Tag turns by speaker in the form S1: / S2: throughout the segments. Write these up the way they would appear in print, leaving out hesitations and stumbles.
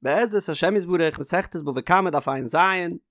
S1: בעזרת השם יתברך מסכת בבא קמא דף ע"ז,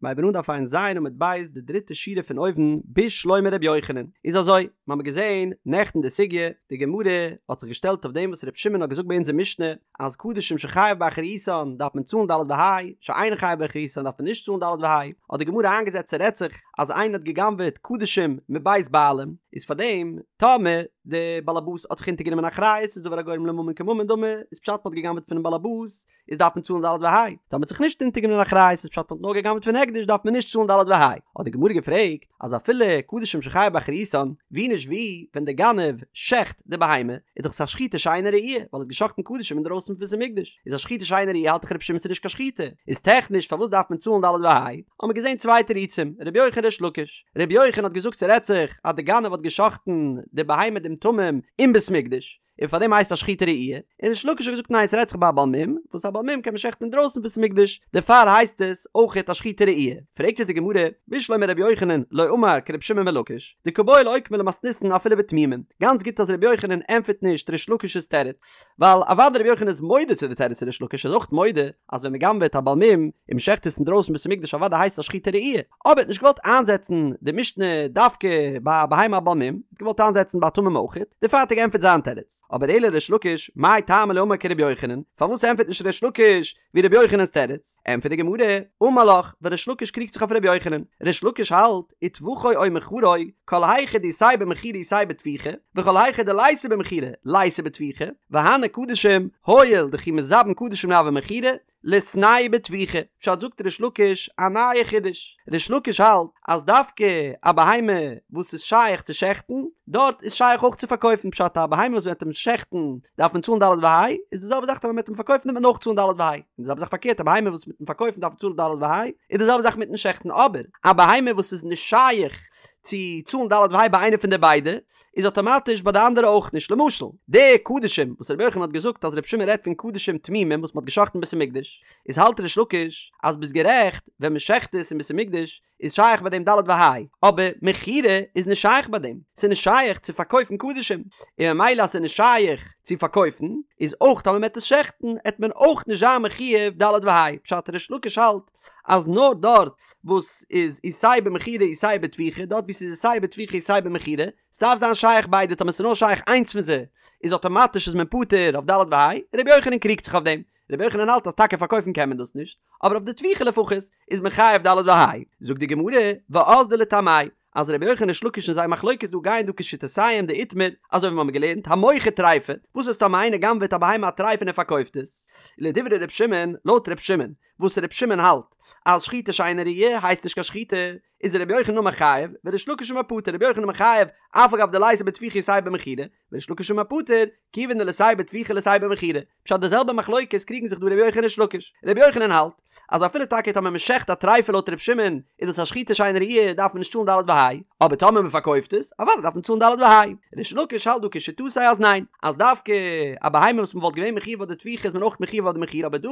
S1: מ'הייבן אן דף ע"ז עמוד ב' די דריטע שורה פון אויבן בשלמא ר' יוחנן, איז אזוי, מ'האמיר געזען נעכטן די סוגיא, די גמרא האט זיך געשטעלט אויף דעם וואס ר' שמעון האט געזאגט ביי אונזער משנה אז קדשים שחייב באחריותן דארף מען צאלן ד' וה', שאין חייב באחריותן דארף מען נישט צאלן ד' וה', האט די גמרא איינגעזעצט ס'רעדט זיך אז איינער האט גע'גנב'עט קדשים מבית בעלים, איז פארדעם טאמער די באלעבאס האט זיך אונטערגענומען אחריות איז דבר הגורם לממון כממון דמי, איז פשט מ'האט גע'גנב'עט פונעם באלעבאס איז דארף מען צאלן ד' וה', טאמער מ'האט זיך נישט אונטערגענומען אחריות איז פשט מ'האט נאר גע'גנב'עט פון הקדש דארף מען נישט צאלן ד' וה', האט די גמרא געפרעגט אז אפילו קדשים שחייב באחריותן, ווי נישט ווי ווען די גנב שעכט די בהמה איז דאך עס א שחיטה שאינה ראויה ווייל ער האט געשאכטן קדשים אינדרויסן פון בית המקדש, איז א שחיטה שאינה ראויה האלט דאך רבי שמעון ס'איז נישט קיין שחיטה, איז טעכניש פארוואס דארף מען צאלן ד' וה'? האמיר געזען צוויי תירוצים, רבי יוחנן ריש לקיש, רבי יוחנן האט געזאגט ס'רעדט זיך אז די גנב האט געשאכטן די בהמה דעם תמים אין בית מקדש, און פאר דעם הייסט א שחיטה ראויה, און ריש לקיש האט געזאגט ניין ס'רעדט זיך ביי א בעל מום, וואס א בעל מום קען מען שעכטן אינדרויסן בית מקדש, דערפאר הייסט עס אויכעט א שחיטה ראויה. פרעגט אונז די גמרא, בשלמא רבי יוחנן לא אמר כרבי שמעון בן לקיש, דקא בעי לאוקמיה למתניתין אפילו בתמימים, גאנץ גוט אז רבי יוחנן ענטפערט נישט ריש לקיש'ס תירוץ, ווייל אוודאי רבי יוחנן איז מודה צו די תירוץ פון ריש לקיש, ער איז אויך מודה אז ווען מ'גנב'עט א בעל מום און מ'שעכט עס אינדרויסן בית המקדש אוודאי הייסט עס א שחיטה ראויה, אבער ער האט נישט געוואלט איינזעצן די משנה דווקא ביי א בהמה א בעל מום, ער האט געוואלט איינזעצן ביי א תמים אויך, דערפאר האט ער געענטפערט זיין תירוץ. אבער אלא ריש לקיש, מאי טעמא לא אמר כרבי יוחנן, פארוואס ענטפערט נישט ריש לקיש ווי רבי יוחנן'ס תירוץ? ענטפערט די גמרא, אמר לך, ווייל ריש לקיש קריגט זיך אויף רבי יוחנן, ריש לקיש האלט, וטבחו או מכרו, כל היכא דאיתיה במכירה איתיה בטביחה, וכל היכא דליתיה במכירה ליתיה בטביחה, והני קדשים, הואיל דכי מזבין קדשים לא הוה מכירה, ליתנהו בטביחה, פשט זאגט ריש לקיש א נייע חידוש, ריש לקיש האלט אז דווקא א בהמה וואס איז שייך צו שעכטן, דארט איז שייך אויך צו פארקויפן, פשט א בהמה וואס מ'וועט אים שעכטן דארף מען צאלן ד' וה', איז די זעלבע זאך טאמער מ'וועט אים פארקויפן וועט מען אויך צאלן ד' וה', און די זעלבע זאך פארקערט א בהמה וואס מיטן פארקויפן דארף מען צאלן ד' וה', איז די זעלבע זאך מיטן שעכטן, אבער א בהמה וואס איז נישט שייך צו צאלן ד' וה' ביי איינע פון די ביידע, איז אטאמאטיש ביי די אנדערע אויך נישט, למשל די קדשים וואס רבי יוחנן האט געזאגט אז רבי שמעון רעדט פון קדשים תמימים וואס מ'האט געשאכטן אין בית המקדש, איז האלט ריש לקיש אז ביסט גערעכט ווען מ'שעכט עס אין בית המקדש איז שייך ביי דעם ד' וה', אבער מכירה איז נישט שייך ביי דעם, ס'איז נישט שייך צו פארקויפן קדשים, און ממילא אז ס'איז נישט שייך צו פארקויפן, איז אויך טאמער מ'עט עס שעכטן עט מען אויך נישט זיין מחויב ד' וה', פשט ריש לקיש האלט אז נאר דארט וואס איז איתיה במכירה איתיה בטביחה, דארט וואו ס'איז איתיה בטביחה איתיה במכירה, ס'דארף זיין שייך ביידע, טאמער ס'איז נאר שייך איינס פון זיי איז אטאמאטיש איז מען פטור אויף ד' וה', רבי יוחנן קריגט זיך אויף דעם, רבי יוחנן האלט אז טאקע פארקויפן קען מען דאס נישט, אבער אויף די טביחה לפחות איז מען חייב ד' וה'. זאגט די גמרא, ואזדו לטעמייהו, אז רבי יוחנן ריש לקיש און זייער מחלוקת דא גייען דא כשיטותיהם דאיתמר, אזוי ווי מיר האבן געלערנט, המוכר טריפה, וואס איז טאמער איינער גנב'עט א בהמה א טריפה און ער פארקויפט עס? לדברי ר' שמעון, לויט ר' שמעון, וואס ר' שמעון האלט אז שחיטה שאינה ראויה הייסט נישט קיין שחיטה, איז רבי יוחנן אמר חייב, וריש לקיש אמר פטור, רבי יוחנן אמר חייב, אף על גב דליתיה בטביחה איתיה במכירה, וריש לקיש אמר פטור, כיוון דליתיה בטביחה ליתיה במכירה. פשט די זעלבע מחלוקת קריגן זיך דא רבי יוחנן ריש לקיש. רבי יוחנן האלט אז אפילו טאקע טאמער מען שעכט א טריפה לויט רבי שמעון איז דאס א שחיטה שאינה ראויה דארף מען נישט צאלן ד' וה', אבער טאמער מען פארקויפט עס אוודאי דארף מען צאלן ד' וה'. ריש לקיש האלט דא כשיטתו אז ניין, אז דווקא א בהמה וואס מען וואלט געווען מחויב אויף די טביחה איז מען אויך מחויב אויף די מכירה אבער דא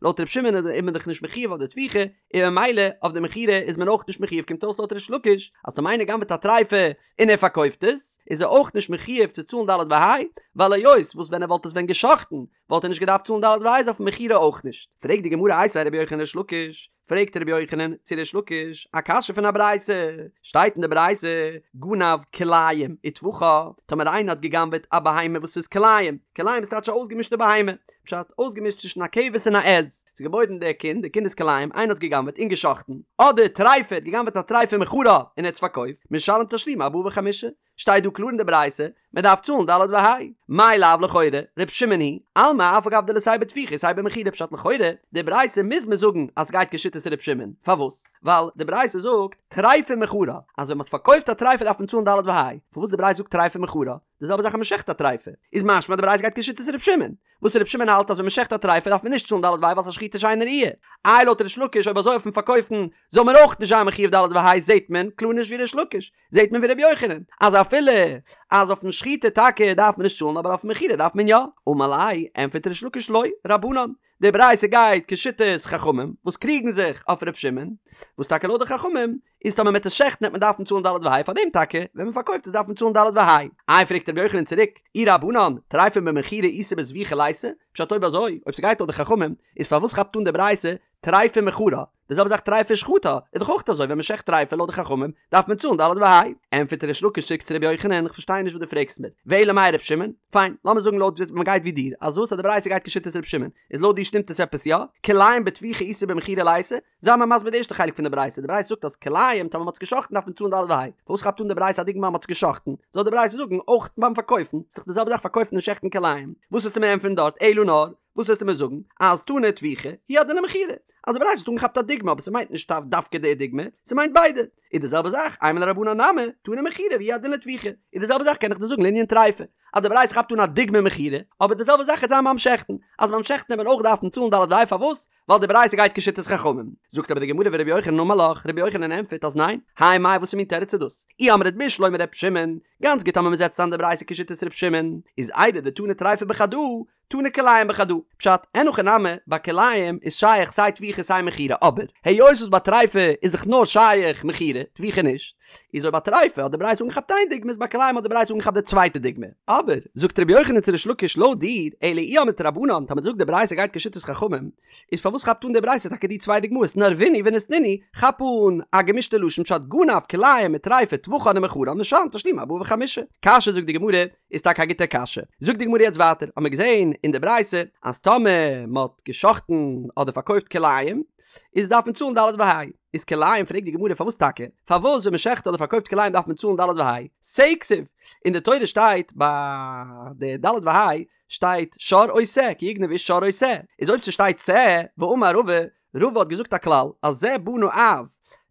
S1: לויט רבי שמעון איז מען דאך נישט מחויב אויף די טביחה און ממילא אויף די מכירה איז מען אויך נישט מחויב קומט אויס לויט ריש לקיש אז טאמער איינער גנב'עט א טריפה און ער פארקויפט עס, איז ער אויך נישט מחויב צו צאלן ד' וה', ווייל היות וואס ווען ער וואלט עס ווען גע'שחט'ן וואלט ער נישט געדארפט צאלן ד' וה' איז אויפן מכירה אויך נישט. פרעגט די גמרא איתיביה רבי יוחנן לריש לקיש, פרעגט רבי יוחנן צו ריש לקיש א קשיא פון א ברייתא, שטייט אין די ברייתא, גנב כלאים וטבחה, טאמער איינער האט גע'גנב'עט א בהמה וואס איז כלאים, כלאים איז טייטש א אויסגעמישטע בהמה, פשט, אויסגעמישט צווישן א כבש און א עז, ס'איז געבוירן דער קינד, דער קינד איז כלאים, איינער האט עס גע'גנב'עט און גע'שחט'ן, אדער טריפה, האט גע'גנב'עט א טריפה ומכרה און ער האט עס פארקויפט, משלם תשלומי ארבעה וחמישה, שטייט דא קלאר אין די ברייתא, מען דארף צאלן ד' וה'. מאי לאו לכאורה, ר' שמעון היא, אלמא אף על גב דליתיה בטביחה איתיה במכירה פשט לכאורה, די ברייתא מוז מען זאגן אז ס'גייט כשיטת ר' שמעון, פארוואס? ווייל די ברייתא זאגט טריפה ומכרה, אז ווען מ'האט פארקויפט א טריפה דארף מען צאלן ד' וה', פארוואס די ברייתא זאגט טריפה ומכרה? די זעלבע זאך אז מ'שעכט א טריפה, איז משמע די ברייתא גייט כשיטת ר' שמעון, וואס ר' שמעון האלט אז ווען מ'שעכט א טריפה דארף מען נישט צאלן ד' וה' ווייל ס'איז א שחיטה שאינה ראויה. איי לויט ריש לקיש אויב אזוי אויפן פארקויפן זאל מען אויך נישט זיין מחויב ד' וה' זעהט מען קלאר נישט ווי ריש לקיש, זעהט מען ווי ר' יוחנן אז אפילו אז אויפן שחיטה טאקע דארף מען נישט צאלן אבער אויפן מכירה דארף מען יא. אמר ליה, ענטפערט ריש לקיש לא, רבנן. די ברייתא גייט כשיטת חכמים וואס קריגן זיך אויף ר' שמעון, וואס טאקע לויט די חכמים איז טאמער מ'עט עס שעכטן עט מען דארפן צאלן ד' וה' פאר דעם טאקע ווען מ'פארקויפט עס דארף מען צאלן ד' וה'. איי פרעגט רבי יוחנן צוריק, אי רבנן, טריפה במכירה איתא בזביחה ליתא, פשט אויב אזוי, אויב ס'גייט לויט די חכמים, איז פארוואס כאפט אן די ברייתא טריפה מכרה, די זעלבע זאך טריפה שחטה, איז דאך אויך אזוי ווען מ'שעכט טריפה לויט די חכמים דארף מען צאלן ד' וה'. ענטפערט ריש לקיש צוריק צו רבי יוחנן, איך פארשטיי נישט וואס דו פרעגסט מיר, ואלא מאי ר' שמעון? פיין, לאמיר זאגן לויט ווי מ'גייט ווי דיר, אז וואס אז די ברייתא גייט כשיטת ר' שמעון, איז לויט דיר שטימט עס עפעס יא? כלאים בטביחה איתא במכירה ליתא? זיי מיר מסביר די ערשטע חלק פון די ברייתא, די ברייתא זאגט אז כלאים טאמער מ'האט עס גע'שחט'ן דארף מען צאלן ד' וה', פארוואס כאפט אן די ברייתא א דוגמא אז מ'האט עס גע'שחט'ן? זאל די ברייתא זאגן אויך ביים פארקויפן, ס'איז דאך די זעלבע זאך פארקויפן און שעכטן כלאים, וואס וועסטו מיר ענטפערן דארט, אלא נאר, וואס וועסטו מיר זאגן, אז תנא טביחה, הוא הדין למכירה, אז די ברייתא האט אנגעכאפט א דוגמא אבער ס'מיינט נישט דווקא די דוגמא, ס'מיינט ביידע, איז די זעלבע זאך, אימא לרבנן נמי, תנא מכירה והוא הדין לטביחה, איז די זעלבע זאך קען איך דיר זאגן לענין טריפה, אז די ברייתא כאפט אן א דוגמא מכירה, אבער די זעלבע זאך וועט זיין ביים שעכטן, אז ביים שעכטן וועט מען אויך דארפן צאלן ד' וה' פארוואס? ווייל די ברייתא גייט כשיטת חכמים. זאגט אבער די גמרא ורבי יוחנן אמר לך, רבי יוחנן ענטפערט אז ניין, האי מאי וואסער מין תירוץ איז דאס? אי אמרת בשלמא ר' שמעון, גאנץ גוט אז מען זעצט איין די ברייתא כשיטת ר' שמעון, איז איידי דתנא טריפה בחדא, תנא כלאים בחדא. פשט, אין הכי נמי, ביי כלאים איז שייך סיי טביחה סיי מכירה, אבער היות וואס ביי טריפה איז דאך נאר שייך מכירה, טביחה נישט, איז אויב ביי טריפה האט די ברייתא אנגעכאפט איין דוגמא איז ביי כלאים האט די ברייתא אנגעכאפט די צווייטע דוגמא. אבער, זאגט רבי יוחנן צו ריש לקיש לויט דיר, אלא אי אמרת רבנן, טאמער דו זאגסט די ברייתא גייט כשיטת חכמים, איז פארוואס כאפט אן די ברייתא טאקע די צוויי דוגמאות נערבינהו וניתנינהו, כאפ אן א געמישטע לשון פשט גנב כלאים וטריפה טבחן ומכרן משלם תשלומי ארבעה וחמישה. קשיא זאגט די גמרא, איז טאקע א גוטע קשיא. זאגט די גמרא יעצט ווייטער, האמיר געזען אין די ברייתא אז טאמער מען האט גע'שחט'ן אדער פארקויפט כלאים, איז דארף מען צאלן ד' וה'. איז כלאים פרעגט די גמרא פארוואס טאקע? פארוואס ווען מען שעכט אדער פארקויפט כלאים דארף מען צאלן ד' וה'? שה כתיב! אין די תורה שטייט ביי די ד' וה' שטייט שור או שה כי יגנב איש שור או שה, איז אויב ס'שטייט שה, ואמר רבא, רבא האט געזאגט א כלל אז זה בנה אב,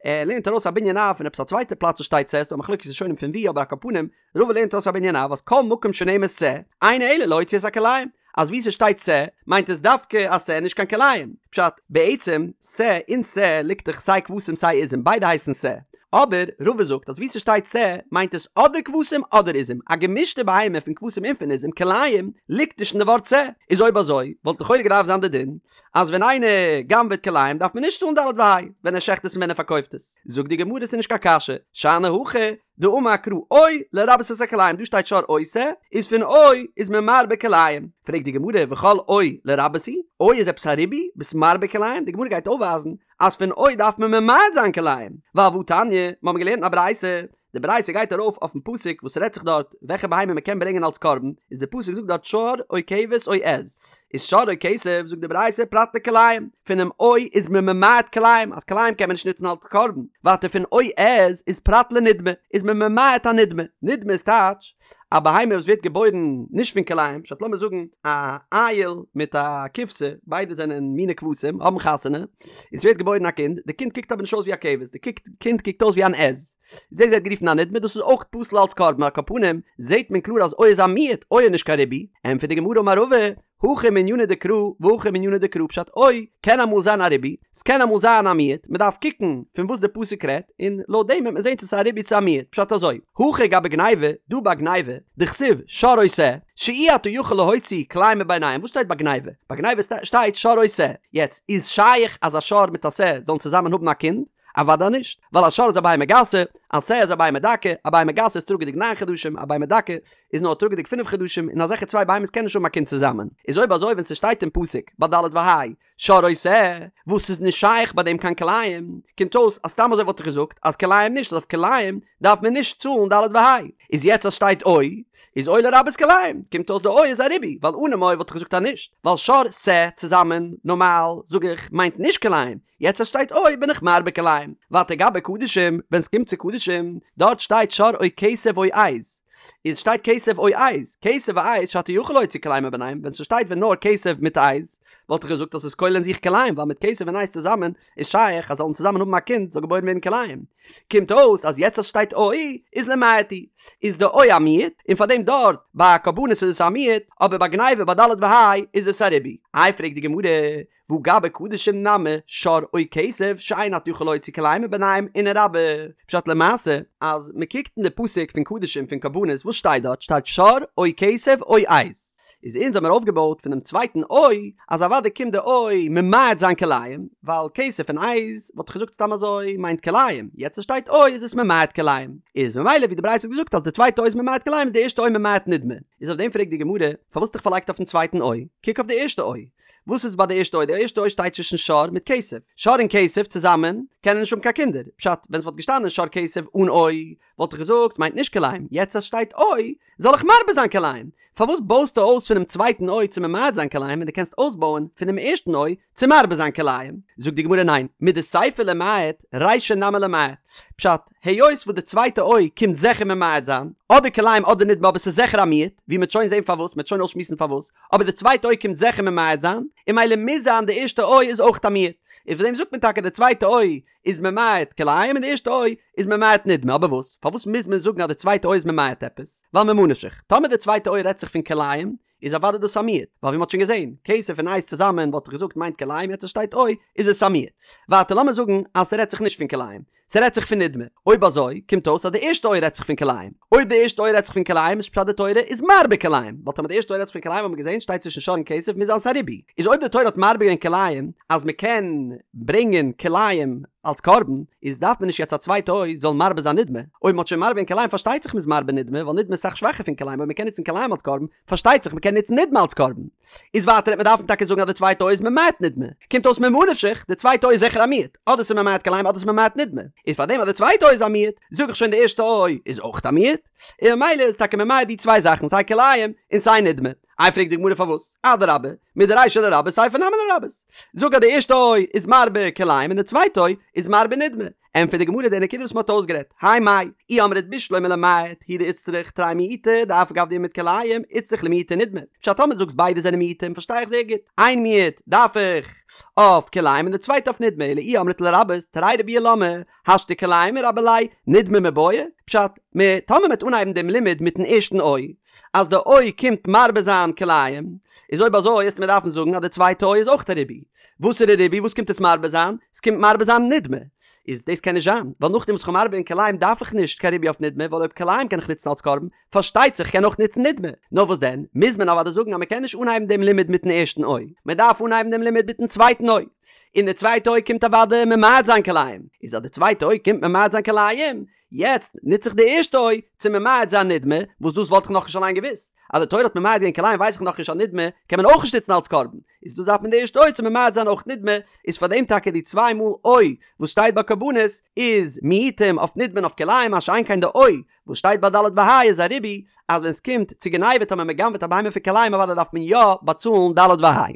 S1: ער לערנט ארויס א בנין אב פון עפעס א צווייטע פלאץ וואס שטייט שה, ס'דא א מחלוקת ראשונים פון ווי אבער על כל פנים רבא לערנט ארויס א בנין אב אז כל מקום שנאמר שה, אינו אלא להוציא את הכלאים, אז ווי ס'שטייט שה, מיינט עס דווקא א שה נישט קיין כלאים. פשט, בעצם, שה אין שה ליגט דאך סיי כבשים סיי עזים, ביידע הייסן שה. אבער, רבא זאגט אז ווי ס'שטייט שה, מיינט עס אדער כבשים אדער עזים, א געמישטע בהמה פון כבשים און פון עזים, כלאים, ליגט נישט אין די ווארט שה. איז אויב אזוי, וואלט לכאורה געדארפט זיין די דין, אז ווען איינער גנב'עט כלאים דארף מען נישט צאלן ד' וה', ווען ער שעכט עס און ווען ער פארקויפט עס. זאגט די גמרא ס'איז נישט קיין קשיא, שאני הכא, דאמר קרא או לרבות את הכלאים דא שטייט שור או שה איז פון או איז מען מרבה כלאים פרעגט די גמרא וכל או לרבות הוא או איז עפעס א ריבוי ביסט מרבה כלאים די גמרא גייט אויפווייזן אז פון או דארף מען ממעט זיין כלאים ווייל והתניא מיר האבן געלערנט אין א ברייתא די ברייתא גייט ארויף אויפן פסוק וואס רעדט זיך דארט וועלכע בהמה מען קען ברענגען אלס קרבן איז די פסוק זאגט דארט שור או כבש או עז איז שור או כשב, זאגט די ברייתא, פרט לכלאים, פונעם או איז מען ממעט כלאים, אז כלאים קען מען נישט נוצן אלס קרבן, ווייטער פון או עז איז פרט לנדמה, איז מען ממעט א נדמה, נדמה איז טייטש, א בהמה וואס ווערט געבוירן נישט פון כלאים, פשט לאמיר זאגן א איל מיט א כבשה, ביידע זענען מיני כבשים, האבן חתונה, און ס'ווערט געבוירן א קינד, די קינד קוקט אבער נישט אויס ווי א כבש, די קינד קוקט אויס ווי אן עז. דאס ווערט גערופן א נדמה, דאס איז אויך פסול אלס קרבן, על כל פנים זעהט מען קלאר אז או איז א מיעוט, או איז נישט קיין ריבוי, ענטפערט די גמרא אמר רבא, הכא מענינא דקרא והכא מענינא דקרא פשט או קען אמאל זיין א ריבוי, ס'קען אמאל זיין א מיעוט, מ'דארף קוקן פון וואס די פסוק רעדט, און לויט דעם וועט מען זעהן צו ס'איז א ריבוי צו א מיעוט, פשט אזוי, הכא גבי גניבה, דא ביי גניבה, דכתיב שור או שה, שאי אתה יכול להוציא כלאים מביניהם, וואס שטייט ביי גניבה? ביי גניבה שטייט שור או שה, יעצט איז שייך אז א שור מיט א שה זאלן צוזאמען האבן א קינד? אוודאי נישט, ווייל א שור איז א בהמה גסה, א שה איז א בהמה דקה, א בהמה גסה איז טראגעדיג ניין חדשים, א בהמה דקה איז נאר טראגעדיג פינף חדשים, און אזעלכע צוויי בהמות קענען נישט האבן א קינד צוזאמען. איז אויב אזוי ווען ס'שטייט אין פסוק ביי ד' וה' שור או שה, וואס איז נישט שייך ביי דעם קיין כלאים, קומט אויס אז סתם אזוי וואלט איך געזאגט אז כלאים נישט, אז אויף כלאים דארף מען נישט צאלן ד' וה'. איז יעצט אז שטייט או, איז או לרבות כלאים, קומט אויס די או איז א ריבוי, ווייל אנעם או וואלט איך געזאגט אז נישט, ווייל שור שה צוזאמען, נארמאל, זאג איך, מיינט נישט כלאים, יעצט אז שטייט או בין איך מרבה כלאים. ווייטער גבי קדשים, ווען סקומט צו קדשים, דארט שטייט שור או כשב או עז. איז שטייט כשב או עז, כשב ועז שאתה יכול להוציא כלאים מביניהם, ווען ס'שטייט ווען נאר כשב מיט עז, וואלט איך געזאגט אז ס'איז כולל אין זיך כלאים, ווייל מיט כשב און עז צוזאמען איז שייך אז זאלן צוזאמען האבן א קינד זאל געבוירן ווערן כלאים. קומט אויס אז יעצט אז שטייט או איז למעט הוא, איז די או א מיעוט, און פארדעם דארט ביי קרבנות איז עס א מיעוט, אבער ביי גניבה ביי ד' וה' איז עס א ריבוי. איי פרעגט די גמרא, והא גבי קדשים נמי שור או כשב שאין אתה יכול להוציא כלאים מביניהם ונרבה. פשט למעשה אז מען קוקט אין די פסוק פון קדשים פון קרבנות וואס שטייט דארט שטייט שור או כשב או עז. איז אונז האמיר אויפגעבויט פונעם צווייטן או אז אוודאי קומט די או ממעט זיין כלאים, ווייל כסף און עז וואלט איך געזאגט סתם אזוי מיינט כלאים, יעצט עס שטייט או איז עס ממעט כלאים, איז ממילא ווי די ברייתא האט געזאגט אז די צווייטע או איז ממעט כלאים איז די ערשטע או ממעט נדמה, איז אויף דעם פרעגט די גמרא, פארוואס האסט דיך פארלייגט אויפן צווייטן או? קוק אויף די ערשטע או. וואס איז ביי די ערשטע או? די ערשטע או שטייט צווישן שור מיט כשב. שור און כשב צוזאמען קענען נישט האבן קיין קינדער. פשט, ווען עס וואלט געשטאנען שור כשב אן או, וואלט איך געזאגט ס'מיינט נישט כלאים. יעצט אז ס'שטייט או, זאל איך מרבה זיין כלאים. פארוואס בויסטו אויס פונעם צווייטן או צו ממעט זיין כלאים ווען דו קענסט אויסבויען פונעם ערשטן או צו מרבה זיין כלאים? זאגט די גמרא ניין, מדסיפא למעט, רישא נמי למעט. פשט, היות וואס די צווייטע או קומט זיכער ממעט זיין, אדער כלאים אדער נדמה אבער ס'איז זיכער א מיעוט, ווי מ'עט שוין זען פארוואס, מ'עט שוין אויסשמועסן פארוואס, אבער די צווייטע או קומט זיכער ממעט זיין, און ממילא מוז זיין די ערשטע או איז אויך א מיעוט, און פאר דעם זאגט מען טאקע די צווייטע או איז ממעט כלאים און די ערשטע או איז ממעט נדמה, אבער וואס? פארוואס מוז מען זאגן אז די צווייטע או איז ממעט עפעס? ווייל ממה נפשך, טאמער די צווייטע או רעדט זיך פון כלאים, איז אוודאי דאס א מיעוט, ווייל ווי מ'האט שוין געזען, כשב און עז צוזאמען וואלט איך געזאגט מיינט כלאים יעצט עס שטייט או איז עס א מיעוט. ווייטער לאמיר זאגן אז ס'רעדט זיך נישט פון כלאים, ס'רעדט זיך פון נדמה, אויב אזוי קומט אויס אז די ערשטע או רעדט זיך פון כלאים, אויב די ערשטע או רעדט זיך פון כלאים איז פשט די תורה איז מרבה כלאים, ווייל טאמער די ערשטע או רעדט זיך פון כלאים האט מען געזען שטייט צווישן שור און כשב מוז זיין ס'א ריבוי, איז אויב די תורה האט מרבה געווען כלאים אז מ'קען ברענגען כלאים אלס קרבן, איז דארף מען נישט יעצט א צווייטע או זאל מרבה זיין נדמה, אויב מ'האט שוין מרבה געווען כלאים פארשטייט זיך מ'איז מרבה נדמה, ווייל נדמה איז אסאך שוואכער פון כלאים, אויב מ'קען נוצן כלאים אלס קרבן, פארשטייט זיך מ'קען נוצן נדמה אלס קרבן. איז ווייטער וועט מען דארפן טאקע זאגן אז די צווייטע או איז ממעט נדמה, קומט אויס ממה נפשך, די צווייטע או איז זיכער א מיעוט, אדער ס'איז ממעט כלאים אדער ס'איז ממעט נדמה, איז פארדעם אז די צווייטע או איז א מיעוט, זאג איך שוין די ערשטע או איז אויך א מיעוט, און ממילא איז טאקע ממעט די צוויי זאכן סיי כלאים און סיי נדמה. איי פרעגט די גמרא פארוואס? אדרבה, מדרישא לרבות סיפא נמי לרבות. זאג אז די ערשטע או איז מרבה כלאים און די צווייטע או איז מרבה נדמה. ענטפערט די גמרא די נקודה וואס מען האט אויסגערעדט, האי מאי, אי אמרת בשלמא למעט הוא דאיצטריך תרי מיעוטי דאף על גב דאימעיט כלאים איצטריך למעוטי נדמה. פשט טאמער דו זאגסט ביידע זענען מיעוטים פארשטיי איך זייער גוט, איין מיעוט דארף איך אויף כלאים און די צווייטע אויף נדמה, אלא אי אמרת לרבות תרי ריבויי למה השתא כלאים מרבי ליה נדמה מיבעיא, פשט, מ, טאמער מ'וועט אנהייבן דעם לימוד מיטן ערשטן או, אז די או קומט מרבה זיין כלאים, איז אויב אזוי וועסטו מיר דארפן זאגן אז די צווייטע או איז אויך א ריבוי. וואסערע ריבוי? וואס קומט עס מרבה זיין? עס קומט מרבה זיין נדמה. איז דאס קען נישט זיין, ווייל נאכדעם וואס כ'האב מרבה געווען כלאים דארף איך נישט קיין ריבוי אויף נדמה, ווייל אויב כלאים קען איך נוצן אלס קרבן, פארשטייט זיך כ'קען אויך נוצן נדמה. נאר וואס דען, מוז מען אוודאי זאגן אז מ'קען נישט אנהייבן דעם לימוד מיטן ערשטן או, מ'דארף אנהייבן דעם לימוד מיטן צווייטן או. און די צווייטע או קומט אוודאי ממעט זיין כלאים, איז אז די צווייטע או קומט ממעט זיין כלאים, יעצט נוץ איך די ערשטע או צו ממעט זיין נדמה, וואס דאס וואלט איך נאכנישט אליין געוואוסט, אז די תורה האט ממעט געווען כלאים ווייס איך נאכנישט אז נדמה קען מען אויך נישט נוצן אלס קרבן, איז דאס דארף מען די ערשטע או צו ממעט זיין אויך נדמה, איז פאר דעם טאקע די צוויי מאל או וואס שטייט ביי קרבנות איז מיעוטים אויף נדמה און אויף כלאים, מה שאין כן די או וואס שטייט ביי ד' וה' איז א ריבוי, אז ווען סקומט צו גניבה טאמער מ'גנב'עט א בהמה פון כלאים אוודאי דארף מען יא באצאלן ד' וה'.